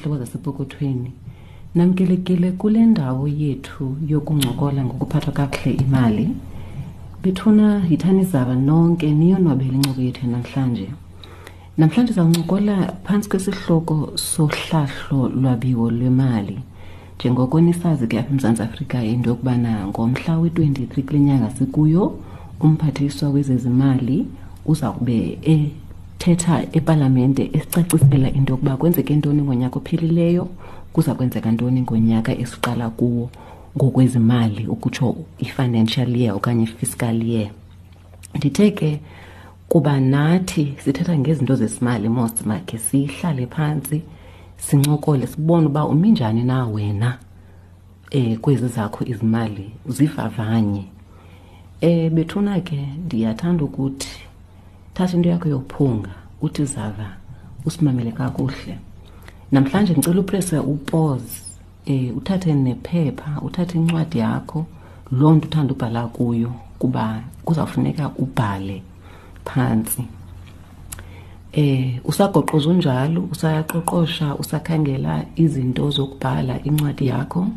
zihlobo zasepokothweni. Namkelekile kule ndawo yethu yokuncokola ngokuphathwa kakuhle imali. Bethuna yithani zaba nonke niyonwabele incoko yethu namhlanje. Namhlanje zawuncokola phantsi kwesihloko sohlahlo lwabiwo lwemali. Njengoko nisazi ke apha eMzantsi Afrika into yokubana ngomhla we-23 kule nyanga sikuyo umphathiswa wezezimali uza kube ethetha epalamente esicacisela into yokuba kwenzeke ntoni ngonyaka ophelileyo, kuza kwenzeka ntoni ngonyaka esiqala kuwo ngokwezimali, ukutsho i-financial year okanye i-fiscal year. Ndithe ke kuba nathi sithetha ngezinto zesimali mos, makhe sihlale phantsi sincokole sibone uba umi njani na wena kwezi zakho izimali, zivavanye. Bethuna ke ndiyathanda ukuthi thatha into yakho yophunga uthi zava usimamele kakuhle. Namhlanje ndicela uprese upause, uthathe nephepha, uthathe incwadi yakho, loo nto uthanda ubhala kuyo, kuba kuzawufuneka ubhale phantsi. Usagoqoza unjalo, usayaqoqosha, usakhangela izinto zokubhala incwadi yakho.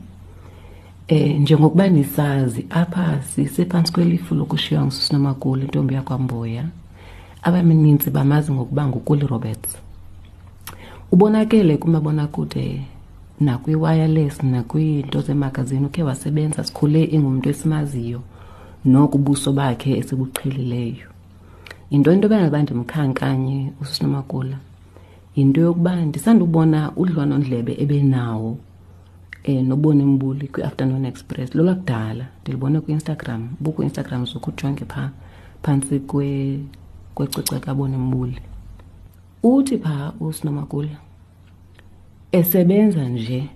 Njengokuba nisazi apha sisephantsi kwelifu lokushiywa nguSisinomakulu, intombi yakwaMboya. Abaninzi bamazi ngokuba nguKuli Roberts. Ubonakele kumabonakude nakwi-wireless nakwiinto zemagazini, ukhe wasebenza, sikhule ingumntu esimaziyo noko ubuso bakhe esibuqhelileyo. Yinto into ebangela ndimkhankanye uSisinomakula yinto yokuba ndisandubona udliwanondlebe ebenawo noBoni Mbuli kwi-Afternoon Express. Lolwakudala ndilibone kwi-Instagram, buku-Instagram zokujonge phaa phantsi kwecwecwe kaBoni Mbuli. Uthi phaa uSinomakula esebenza nje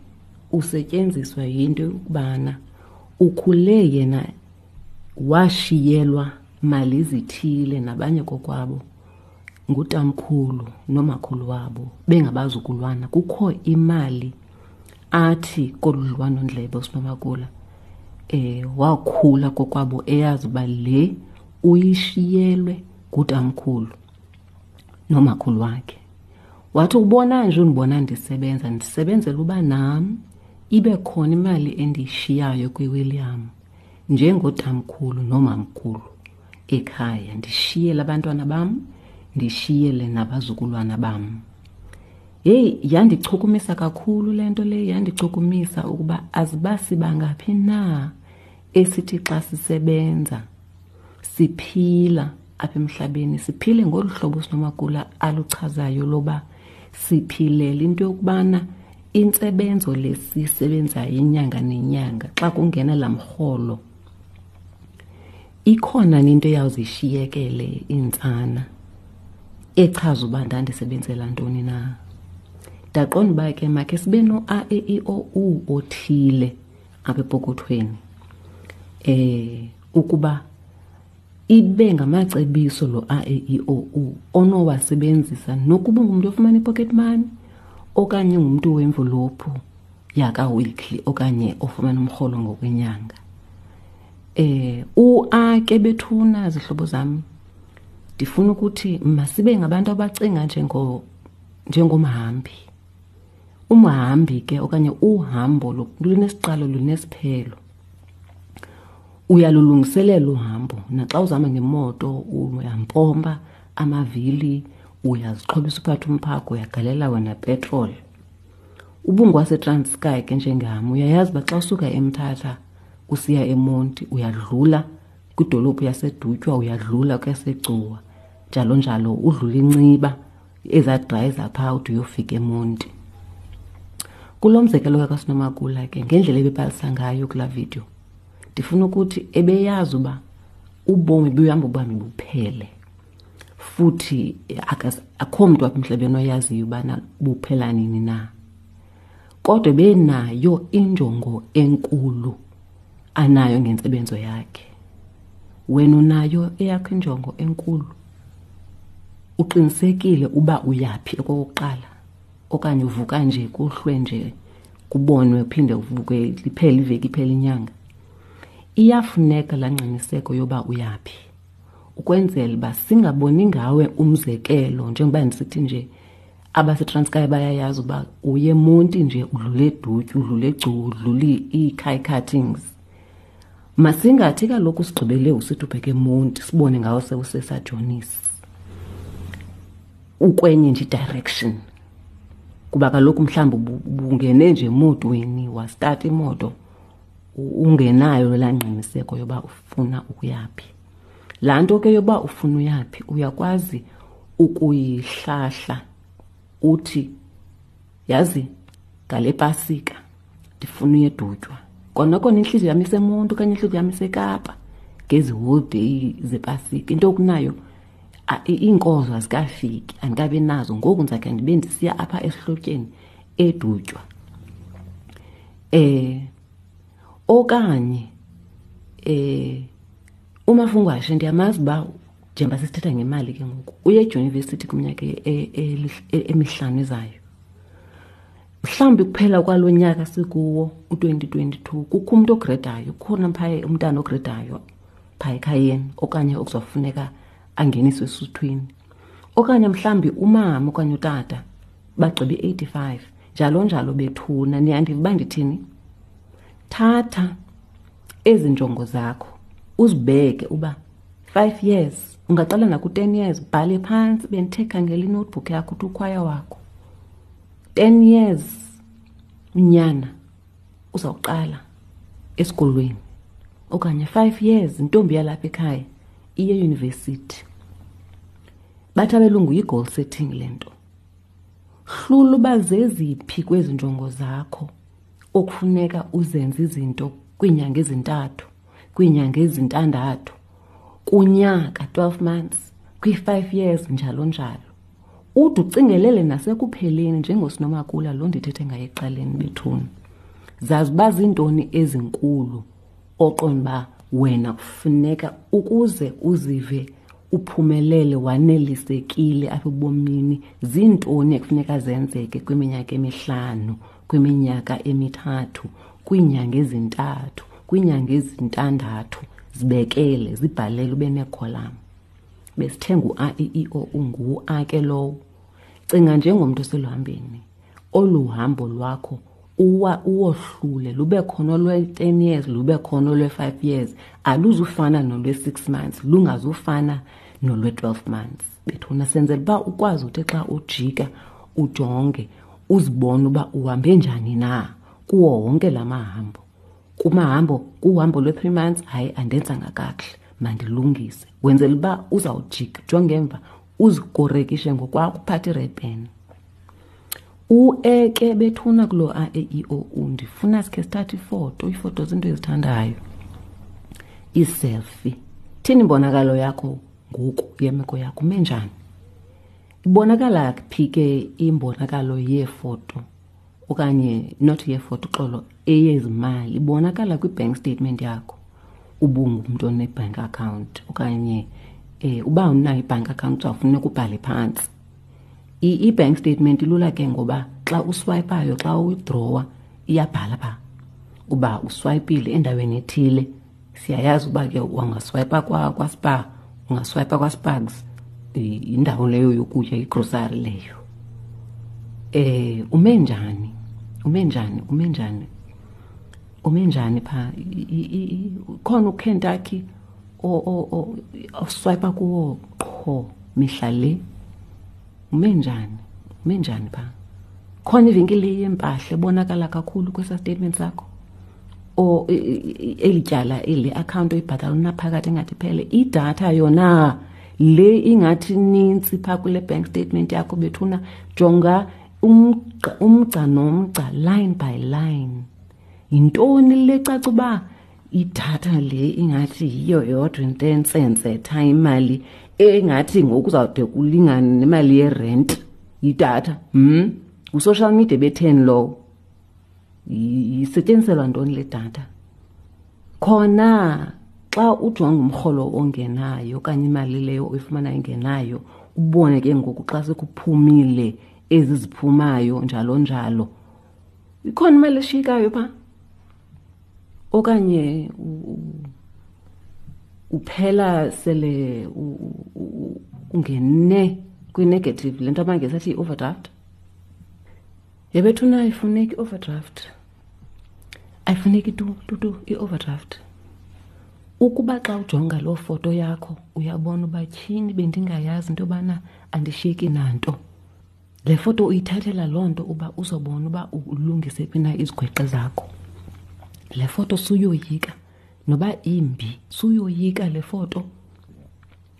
usetyenziswa yinto yokubana ukhule yena washiyelwa mali zithile nabanye kokwabo ngutamkhulu nomakhulu wabo bengabazukulwana. Kukho imali athi kolu dliwanondlebe uSinomakula wakhula kokwabo eyazi uba le uyishiyelwe ngutamkhulu nomakhulu wakhe. Wathi ubona nje undibona ndisebenza, ndisebenzela uba nam ibe khona imali endiyishiyayo kwiWilliam njengotamkhulu nomamkhulu ekhaya, ndishiyele abantwana bam, ndishiyele nabazukulwana bam. Heyi, yandichukumisa kakhulu le nto le, yandichukumisa ukuba aziba sibangaphi na esithi xa sisebenza siphila apha emhlabeni, siphile ngolu hlobo Sinomakula aluchazayo loba siphilela into yokubana intsebenzo le siyisebenzayo inyanga nenyanga xa kungena laa mrholo ikhona into eyawuzishiyekele iintsana echaza uba ndandisebenzela ntoni na. Ndaqonda uba ke makhe sibe no-A E I O U othile apha epokothweni, ukuba ibe ngamacebiso lo A E I O U onowasebenzisa nokuba ungumntu ofumana i-pocket money okanye ungumntu wemvulophu yaka-weekly okanye ofumana umrholo ngokwenyanga. U-A ke bethuna zihlobo zam, ndifuna ukuthi masibe ngabantu abacinga njengomhambi. Umhambi ke okanye uhambo lunesiqalo lunesiphelo. Uyalulungiselela uhambo, naxa uzama ngemoto uyampompa amavili, uyazixhobisa uphathe umphako, uyagalela wena petrol. UbungwaseTranskei ke njengam, uyayazi uba xa usuka eMthatha usiya eMonti uyadlula kwidolophu yaseDutywa, uyadlula kweyaseGcuwa, njalo njalo, udlula iNciba, ezaa drayi zaphaa ude uyofika eMonti. Kulo mzekelo kaSinomakula ke, ngendlela ebebalisa ngayo kulaa video, ndifuna ukuthi ebeyazi uba ubomi buhamba ubomi buphele, futhi akho mntu apha emhlabeni oyaziyo ubana buphela nini na. Kodwa ebenayo injongo enkulu anayo ngentsebenzo yakhe. Wena unayo eyakho injongo enkulu? Uqinisekile uba uyaphi okokuqala, okanye uvuka nje kuhlwe nje kubonwe uphinde uvuke liphele iveki iphele inyanga? Iyafuneka laa ngqiniseko yoba uyaphi, ukwenzela uba singaboni ngawe umzekelo. Njengoba ndisithi nje AbaseTranskei bayayazi uba uye eMonti nje udlule eDutyu, udlule eGcuwa, udlule iiKai Cuttings. Masingathi kaloku sigqibele usithi ubheke eMonti sibone ngawo sewuseSajonisi. Ukwenye nje i-direction. Kuba kaloku mhlawumbi ubungene nje emotweni wastata imoto ungenayo laa ngqiniseko yoba ufuna ukuyaphi. Laa nto ke yoba ufuna uyaphi uyakwazi ukuyihlahla uthi yazi ngale Pasika ndifuna uye eDutywa. Kona kona intliziyo yam iseMonti okanye intliziyo yam iseKapa ngezi holiday zePasika. Into okunayo iinkozo azikafiki, andikabi nazo. Ngoku ndizakhe ndibe ndisiya apha esihlotyeni eDutywa. Okanye umafungwashe ndiyamazi uba njengoba sisithetha ngemali ke ngoku uye edyunivesithi kwiminyaka emihlanu ezayo. Mhlawumbi kuphela kwalo nyaka sikuwo u-2022 kukho umntu ogredayo, kukhona phaya umntana ogredayo phaa ekhayeni okanye okuzofuneka angeniswe esuthwini, okanye mhlawumbi umama okanye utata bagqibe i-85 njalo njalo. Bethuna, niyandiva uba ndithini? Thatha ezi njongo zakho uzibeke uba 5 years, ungaqala naku-10 years, bhale phantsi. Bendithe khangela inotebook yakho uthi ukhwaya wakho 10 years unyana uzawuqala esikolweni, okanye 5 years intombi yalapha ekhaya iye eyunivesithi. Bathi abelungu yi-goal setting le nto. Hlula uba zeziphi kwezi njongo zakho okufuneka uzenze izinto kwiinyanga ezintathu, kwiinyanga ezintandathu, kunyaka 12 months, kwi-5 years njalo njalo. Ude ucingelele nasekupheleni njengoSinomakula lo ndithethe ngaye ekuqaleni bethuna. Zazi uba ziintoni ezinkulu oqonda uba wena kufuneka ukuze uzive uphumelele wanelisekile apha ebomini, ziintoni ekufuneka zenzeke kwiminyaka emihlanu, kwiminyaka emithathu, kwiinyanga ezintathu, kwiinyanga ezintandathu. Zibekele, zibhalele ube neekholam. Besithenga u-A, E, I, O, U, ngu-A ke lowo. Cinga njengomntu oseluhambeni. Olu hambo lwakho uwohlule, lube khona olwe-10 years, lube khona olwe-5 years. Aluzufana nolwe-6 months, lungazufana nolwe-12 months. Bethuna senzela uba ukwazi uthi xa ujika ujonge uzibone uba uhambe njani na kuwo wonke la mahambo. Kumahambo, kuhambo lwe-3 months, hayi andenzanga kakuhle, mandilungise. Wenzela uba uzawujika, jonge emva, uzikorekishe ngokwakho, uphathe i-red pen. U-E ke bethuna kuloo A, E, I, O, U, ndifuna sikhe sithathe ifoto. Iifoto zinto ezithandayo, iiselfie. Thini imbonakalo yakho ngoku yemeko yakho, ume njani? Ibonakala phi ke imbonakalo yeefoto okanye not yeefoto, uxolo, eyezimali? Ibonakala kwi-bank statement yakho, ubungumntu one-bank account okanye uba unayo i-bank account uzawufuneka ubhale phantsi. I-bank statement ilula ke ngoba xa uswipayo, xa uwithdrawa, iyabhala phaa uba uswayipile endaweni ethile. Siyayazi uba ke ungaswayipa kwaSpar, ungaswayipa kwaSpargs, yindawo leyo yokutya, igrosari leyo. Ume njani? Ume njani? Ume njani? Ume njani phaa? Khona uKentucky oswayipa kuwo qho mihla le? Ume njani? Ume njani phaa? Khona ivenkile yempahla ebonakala kakhulu kwesa statement sakho? O eli tyala, eli account oyibhatala unaphakathi engathi iphele. Idatha yona le ingathi nintsi phaa kule bank statement yakho bethuna, jonga umgca nomgca, line by line. Yintoni le caca uba idatha le ingathi yiyo yodwa into entsensetha imali engathi ngoku uzawude kulingane nemali yerent yidatha? Ngu-social media betheni lowo? Isetyenziselwa ntoni le datha? Khona xa ujonga umrholo ongenayo okanye imali leyo oyifumana ingenayo, ubone ke ngoku xa sekuphumile ezi ziphumayo njalo njalo, ikhona imali eshiyekayo phaa? Okanye uphela sele ungene kwi-negative, le nto abangesi athi i-overdraft? Yebethuna ayifuneki i-overdraft, ayifuneki tu tu tu i-overdraft. Ukuba xa ujonga loo foto yakho uyabona uba tyhini bendingayazi into yobana andishiyeki nanto, le foto uyithathela loo nto uba uzobona uba ulungise phi na izigweqe zakho. Le foto suyoyika noba imbi, suyoyika le foto.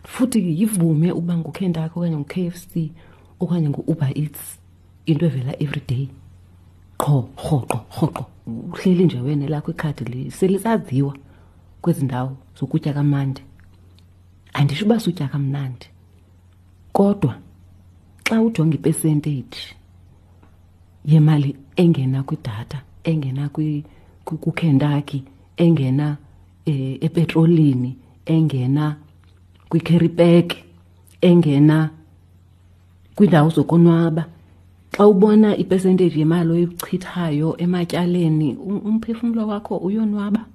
Futhi yivume uba nguKentucky okanye ngu-K F C okanye ngu-Uber Eats, into evela everyday qho, rhoqo rhoqo. Uhleli nje wena elakho ikhadi selisaziwa kwezi ndawo zokutya kamandi. Andisho uba sutya kamnandi, kodwa xa ujonga ipercentage yemali engena kwidatha, engena kuKentucky, engena epetrolini, engena kwi-carry pack, engena kwiindawo zokonwaba, xa ubona ipercentage yemali oyichithayo ematyaleni, umphefumlo wakho uyonwaba.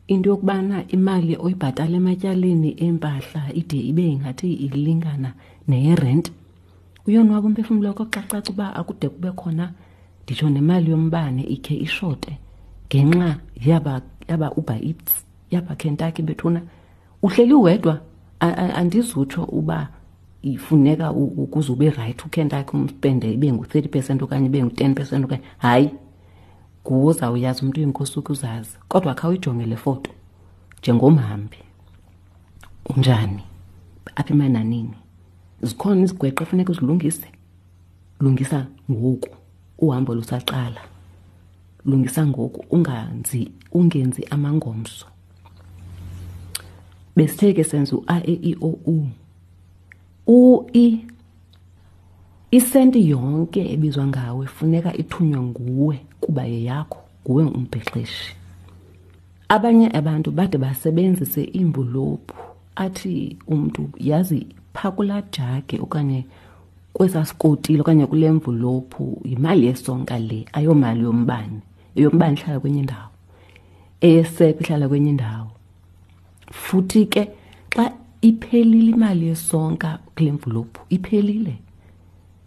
Into yokubana imali oyibhatala ematyaleni empahla ide ibe ingathi ilingana neyerenti, uyonwaba umphefumlo wakho xa caca uba akude kube khona nditsho nemali yombane ikhe ishote ngenxa yaba Uber Eats, yaba Kentucky. Bethuna uhleli wedwa, andizutsho uba ifuneka ukuze ube rayithi uKentucky umspende ibe ngu-30% okanye ibe ngu-10% okanye hayi, nguwe ozawuyazi umntu uyinkosi ukuzazi. Kodwa khawuyijonge le foto njengomhambi, unjani apha emananini? Zikhona izigweqe efuneka uzilungise, lungisa ngoku uhambo lusaqala, lungisa ngoku, ungenzi amangomso. Besithe ke senza u-A E I O U. U I, isenti yonke ebizwa ngawe funeka ithunywe nguwe kuba yeyakho, nguwe umbhexeshi. Abanye abantu bade basebenzise iimvulophu, athi umntu yazi phaa kulaa jagi okanye kwesaa sikotile okanye kule mvulophu yimali yesonka le, ayomali yombane. Eyombane ihlala kwenye indawo, eyesepha ihlala kwenye indawo. Futhi ke xa iphelile imali yesonka kule mvulophu, iphelile,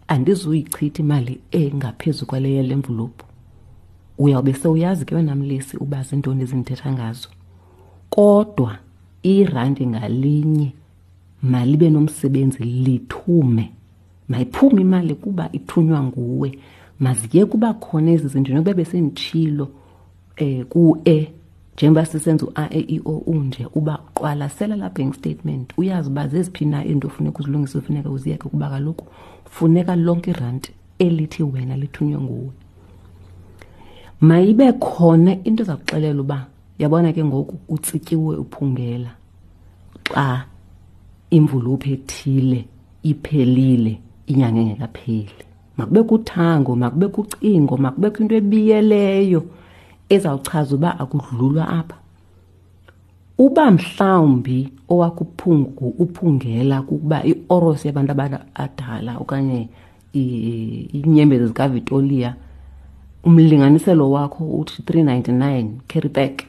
andizuyichitha imali engaphezu kwale yale mvulophu. Uyawube sewuyazi ke wena mlesi uba zintoni ezindithetha ngazo. Kodwa irandi ngalinye malibe nomsebenzi, lithume. Mayiphume imali kuba ithunywa nguwe. Maziye kuba khona ezi zinto nokuba besenditshilo ku-E, njengoba sisenza u-A E I O U nje, uba qwalasela laa bank statement, uyazi uba zeziphi na iinto ofuneka uzilungise, funeka uziyeke, kuba kaloku funeka lonke iranti elithi wena lithunywe nguwe. Mayibe khona into eza kuxelela uba yabona ke ngoku utsityiwe uphungela xa imvulophu ethile iphelile inyanga engekapheli. Makube kuthango, makube kucingo, makube kwinto ebiyeleyo ezawuchaza uba akudlulwa apha. Uba mhlawumbi owakuphungu uphungela kukuba i-oros yabantu abadala okanye iinyembezi zikaVitoria, umlinganiselo wakho uthi 399 carry back.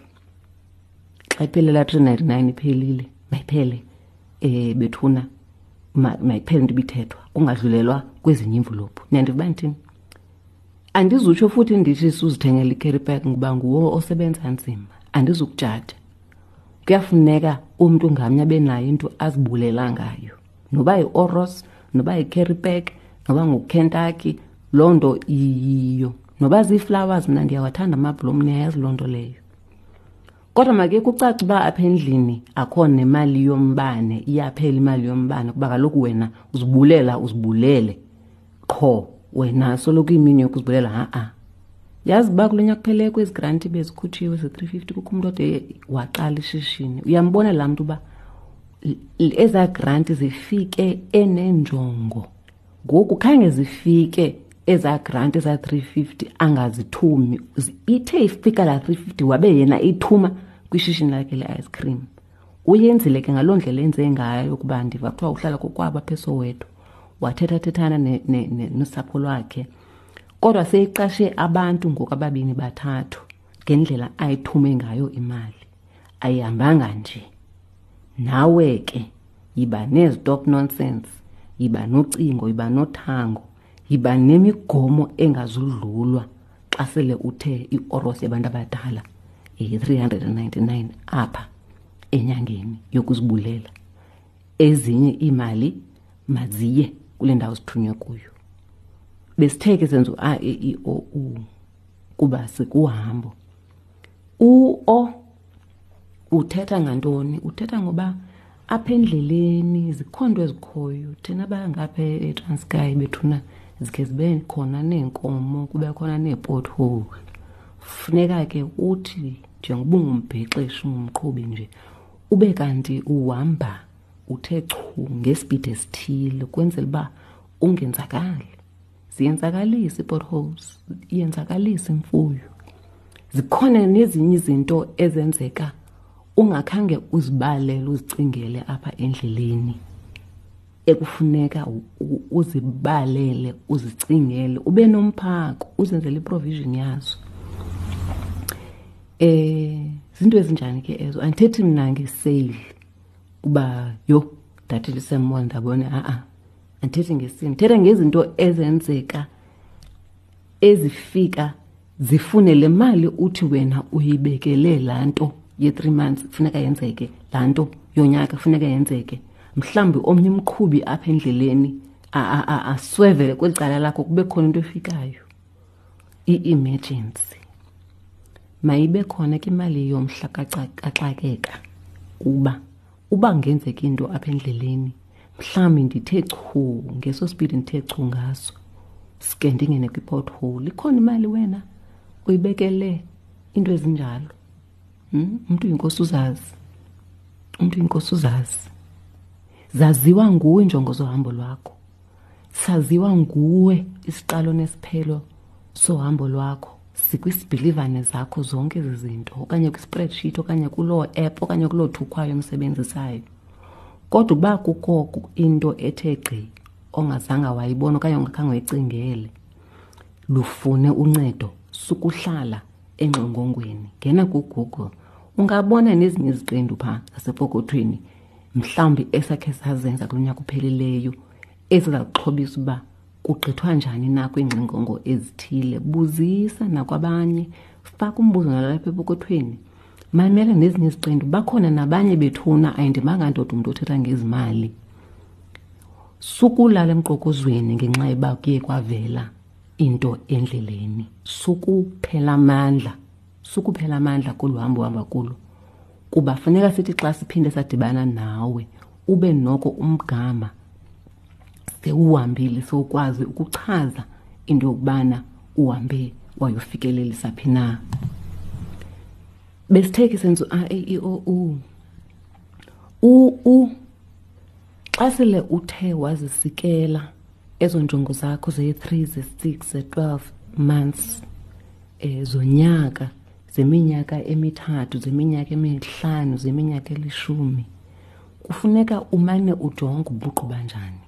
Xa iphelela 399 iphelile, mayiphele, bethuna, mayiphele into ibithethwa, kungadlulelwa kwezinye iimvulophu. Niyandiva uba ndithini? Andizutsho futhi ndithi suzithengela i-carry pack ngoba nguwo osebenza nzima, andizukujaja. Kuyafuneka umntu ngamnye abe nayo into azibulela ngayo, noba yi-oros, noba yi-carry pack, noba nguKentucky, loo nto iyiyo. Noba zii-flowers, mna ndiyawathanda amabhlomu, niyayazi loo nto leyo. Kodwa make kucace uba apha endlini akho nemali yombane, iyaphela imali yombane, kuba kaloku wena uzibulela, uzibulele qho wena soloko imini yokuzibulela. Ha-a. Yazi uba kulo nyaka kuphele kwezi granti bezikhutshiwe ze-350, kukho umntu ode waqala ishishini. Uyambona laa mntu uba ezaa granti zifike enenjongo. Ngoku khange zifike ezaa granti, ezaa 350, angazithumi. Ithe ifika laa 350 wabe yena ithuma kwishishini lakhe le-ice cream. Uyenzile ke ngaloo ndlela enze ngayo, kuba ndiva kuthiwa uhlala kokwabo apha eSoweto, wathethathethana nosapho lwakhe. Kodwa seyiqashe abantu ngoku ababini bathathu ngendlela ayithume ngayo imali. Ayihambanga nje. Nawe ke yiba nezitop nonsense, yiba nocingo, yiba nothango. Yiba nemigomo engazudlulwa xa sele uthe ioros yabantu abadala yi-399 apha enyangeni yokuzibulela. Ezinye iimali maziye kule ndawo zithunywe kuyo. Besithe ke senza u-A, E, I, O, U kuba sikuhambo. U-O uthetha ngantoni? Uthetha ngoba apha endleleni zikhona into ezikhoyo. Thina bangapha eTranskei bethuna zikhe zibe khona neenkomo, kube khona nee-pothole. Funeka ke uthi njengoba ungumbhexeshi, ungumqhubi nje, ube kanti uhamba uthe chu ngesipidi esithile ukwenzela uba ungenzakali. Ziyenzakalisa ii-potholes, iyenzakalisa imfuyo. Zikhona nezinye izinto ezenzeka ungakhange uzibalele, uzicingele apha endleleni, ekufuneka uzibalele, uzicingele, ube nomphako, uzenzele i-provision yazo. Zinto ezinjani ke ezo? Andithethi mna ngeseyili uba yho ndathi lisemall ndabona, ha-a. Andithethi ngesini, ndithetha ngezinto ezenzeka ezifika zifune le mali uthi wena uyibekele laa nto ye-3 months kufuneka yenzeke, laa nto yonyaka kufuneka yenzeke. Mhlawumbi omnye umqhubi apha endleleni aswevele kweli cala lakho, kube khona into efikayo, i-emergency. Mayibe khona ke imali yomhla kaxakeka, kuba uba kungenzeka into apha endleleni, mhlawumbi ndithe chu ngeso speed ndithe chu ngaso, sike ndingene kwi-pothole, ikhona imali wena uyibekele into ezinjalo. Umntu uyinkosi uzazi, umntu uyinkosi uzazi. Zaziwa nguwe injongo zohambo lwakho, saziwa nguwe isiqalo nesiphelo sohambo lwakho. Sikwisibhilivane zakho zonke ezi zinto, okanye kwi-spreadsheet, okanye kuloo app, okanye kuloo thukhwayo omsebenzisayo. Kodwa uba kukho into ethe gqi ongazange wayibona okanye ongakhange uyicingele, lufune uncedo, sukuhlala engxongongweni. Ngena kuGoogle, ungabona nezinye iziqendu phaa zasepokothweni, mhlawumbi esakhe sazenza kulo nyaka uphelileyo, eziza kuxhobisa uba kugqithwa njani na kwiingxingongo ezithile. Buzisa nakwabanye, faka umbuzo nalapha epokothweni, mamela nezinye iziqendu. Bakhona nabanye bethuna, ayindimanga ndoda umntu othetha ngezimali. Sukulala emqokozweni ngenxa yoba kuye kwavela into endleleni. Sukuphela amandla, sukuphela amandla kolu hambo uhamba kulo, kuba funeka sithi xa siphinde sadibana nawe ube noko umgama sewuhambile, sewukwazi ukuchaza into yokubana uhambe wayofikelelisa phi na. Besithe ke senza u-A, E, I, O, U. U, U, xa sele uthe wazisikela ezo njongo zakho ze-3, ze-6, ze-12 months, zonyaka, zeminyaka emithathu, zeminyaka emihlanu, zeminyaka elishumi, kufuneka umane ujonge ubuqu banjani.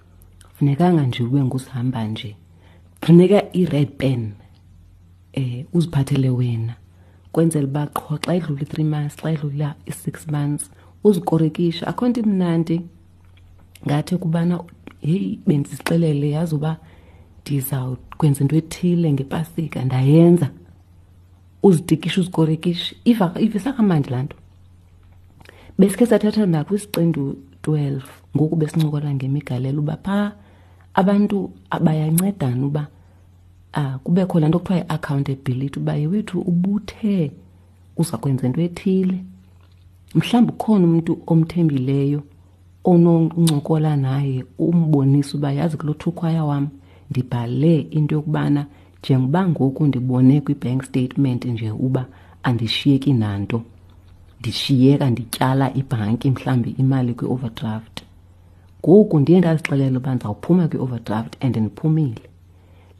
Funekanga nje ube ngusihamba nje. Funeka i-red pen, uziphathele wena, kwenzela uba qho xa idlula i-3 months, xa idlula i-6 months, uzikorekishe. Akho nto imnandi ngathi kubana heyi bendizixelele yazi uba ndizawukwenza into ethile ngepasika, ndayenza. Uzitikishe, uzikorekishe. Ivisa kamandi laa nto. Besikhe sathatha nakwisiqendu 12, ngoku besincokola ngemigalelo uba phaa abantu bayancedana uba kubekho laa nto kuthiwa yi-accountability, uba yewethu ubuthe uza kwenza into ethile. Mhlawumbi ukhona umntu omthembileyo ononcokola naye, umbonise uba yazi kulo thukhwaya wam ndibhale into yokubana njengoba ngoku ndibone kwi-bank statement nje uba andishiyeki nanto, ndishiyeka ndityala ibhanki mhlawumbi imali kwi-overdraft. Ngoku ndiye ndazixelela uba ndizawuphuma kwi-overdraft and ndiphumile.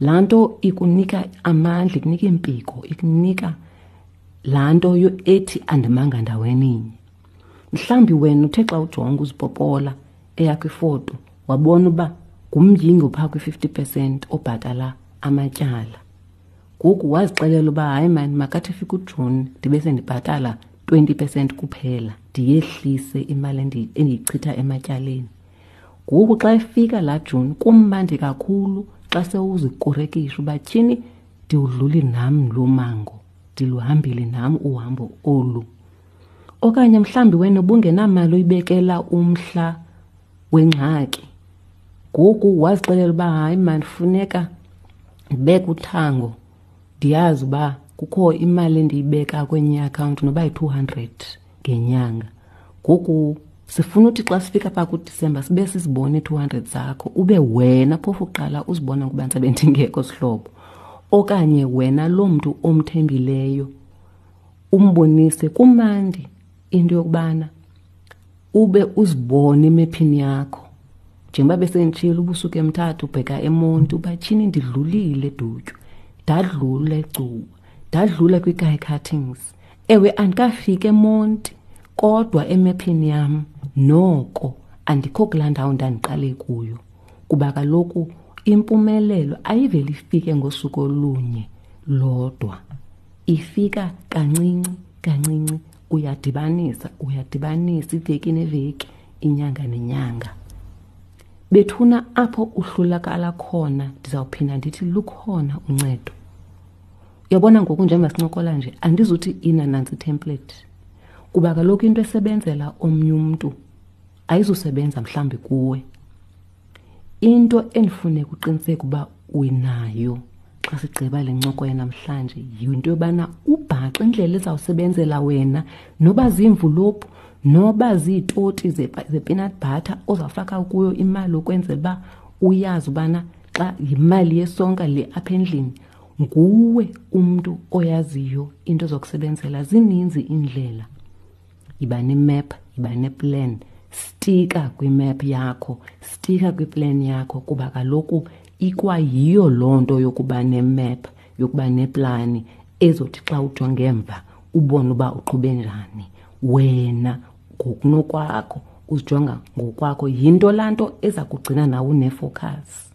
Laa nto ikunika amandla, ikunika iimpiko, ikunika laa nto ethi andimanga ndaweninye. Mhlawumbi wena uthe xa ujonga uzipopola eyakho ifoto wabona uba ngumyinge ophaa kwi-50% obhatala amatyala. Ngoku wazixelela uba hayi mani, makathi efika uJuni ndibe sendibhatala 20% kuphela, ndiyehlise imali endiyichitha ematyaleni. Ngoku xa efika laa Juni kumnandi kakhulu xa sewuzikorekisha uba tyhini ndiwudluli nam lo mango, ndiluhambile nam uhambo olu. Okanye mhlawumbi wena ubungenamali uyibekela umhla wengxaki, ngoku wazixelela uba hayi mani funeka ndibeke uthango, ndiyazi uba kukho imali endiyibeka kwenye iakhawunti noba yi-200 ngenyanga. Ngoku sifuna uthi xa sifika phaa kuDisemba sibe sizibone ii-200 zakho, ube wena phofu uqala uzibona ukuba ndisabe ndingekho sihlobo. Okanye wena loo mntu omthembileyo umbonise. Kumandi into yokubana ube uzibone emephini yakho. Njengoba besenditshilo, ubusuku eMthatha ubheka eMonti, uba tyhini ndidlulile eDutywa, ndadlula eGcuwa, ndadlula kwiKai Cuttings. Ewe, andikafiki eMonti, kodwa emephini yam noko andikho kulaa ndawo ndandiqale kuyo. Kuba kaloku impumelelo ayiveli ifike ngosuku olunye lodwa, ifika kancinci kancinci, uyadibanisa, uyadibanisa iveki neveki, inyanga nenyanga. Bethuna apho uhlulakala khona, ndizawuphinda ndithi lukhona uncedo. Uyabona ngoku njengoba sincokola nje, andizuthi ina nantsi template, kuba kaloku into esebenzela omnye umntu ayizusebenza mhlawumbi kuwe. Into endifuneka uqiniseke uba unayo xa sigqiba le ncoko yanamhlanje yinto yobana ubhaqe indlela ezawusebenzela wena, noba ziimvulophu, noba ziitoti ze-peanut butter ozawufaka kuyo imali ukwenzela uba uyazi ubana xa yimali yesonka le apha endlini, nguwe umntu oyaziyo into zokusebenzela. Zininzi iindlela. Yiba nemap, yiba neplan, stika kwimap yakho, stika kwiplan yakho, kuba kaloku ikwayiyo loo nto yokuba nemap, yokuba neplani ezothi xa ujonge emva ubone uba uqhube njani wena ngokunokwakho, uzijonga ngokwakho. Yinto laa nto eza kugcina nawe unefocus.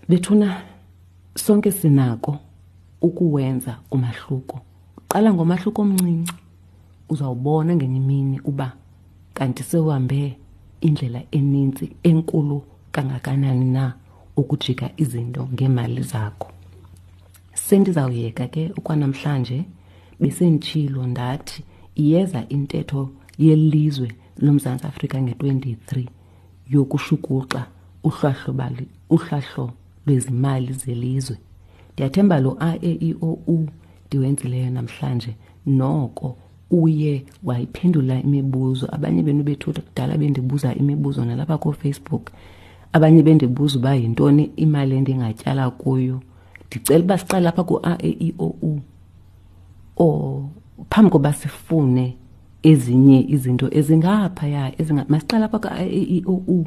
Bethuna, sonke sinako ukuwenza umahluko. Qala ngomahluko omncinci, uzawubona ngenye imini uba kanti sewuhambe indlela enintsi enkulu kangakanani na ukujika izinto ngeemali zakho. Sendizawuyeka ke okwanamhlanje. Besenditshilo ndathi iyeza intetho yelizwe loMzantsi Afrika nge-23 yokushukuxa uhlahlo lwezimali zelizwe. Ndiyathemba lo A E I O U ndiwenzileyo namhlanje noko uye wayiphendula imibuzo. Abanye benu bethutha kudala bendibuza imibuzo nalapha kooFacebook, abanye bendibuza uba yintoni imali endingatyala kuyo. Ndicela uba siqale apha ku-A E I O U o phambi koba sifune ezinye izinto ezingaphaya, masiqale apha ku-A E I O U.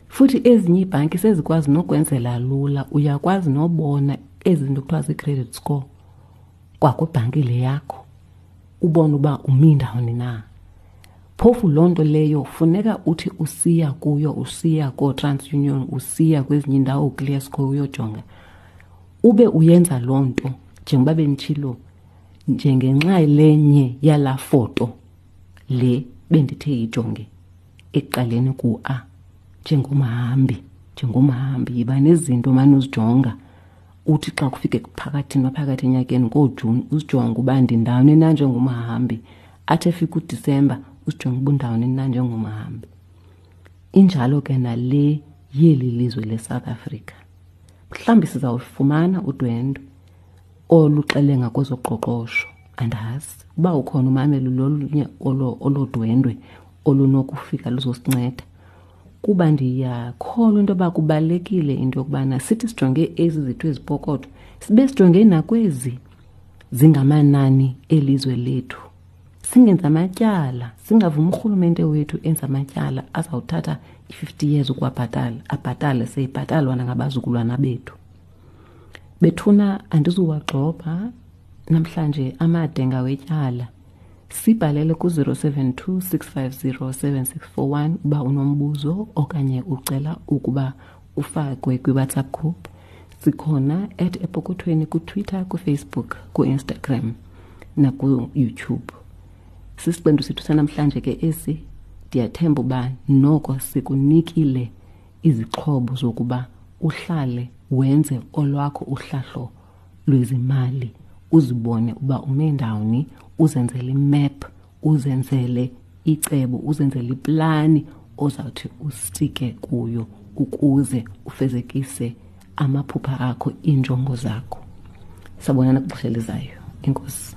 Futhi ezinye iibhanki sezikwazi nokwenzela lula, uyakwazi nobona ezi zinto kuthiwa zii-credit score kwakwibhanki le yakho, ubone uba umi ndawoni na. Phofu loo nto leyo funeka uthi usiya kuyo, usiya kooTransunion, usiya kwezinye iindawo uclear score uyojonga, ube uyenza loo nto njengoba benditshilo, njengenxa lenye yalaa foto le bendithe yijonge ekuqaleni ku-A, njengomhambi, njengomhambi yiba nezinto mane uzijonga. Uthi xa kufike phakathi naphakathi enyakeni ngooJuni uzijonge uba ndindawoni na njengomhambi, athi efika uDisemba uzijonge uba undawoni na njengomhambi. Injalo ke nale yeli lizwe leSouth Africa. Mhlawumbi sizawufumana udwendwe oluxelenga kwezoqoqosho, andazi uba ukhona umamelo lolunye olo dwendwe olunokufika luzosinceda, kuba ndiyakholwa into yoba kubalulekile into yokubana sithi sijonge ezi zethu ezipokotho, sibe sijonge nakwezi zingamanani elizwe lethu. Singenzi amatyala, singavumi urhulumente wethu enze amatyala azawuthatha i-50 years ukuwabhatala, abhatale seyibhatalwa nangabazukulwana bethu. Bethuna, andizuwagxobha namhlanje amade ngawetyala. Sibhalele ku-072 650 7641 uba unombuzo okanye ucela ukuba ufakwe kwi-WhatsApp group. Sikhona at Epokothweni kuTwitter, kuFacebook, ku-Instagram naku-YouTube. Sisiqendu sethu sanamhlanje ke esi. Ndiyathemba uba noko sikunikile izixhobo zokuba Uhlale wenze olwakho uhlahlo lwezimali, uzibone uba ume ndawoni, uzenzele imap, uzenzele icebo, uzenzele iplani ozawuthi ustike kuyo ukuze ufezekise amaphupha akho, iinjongo zakho. Sabonana kwixesha elizayo. Enkosi.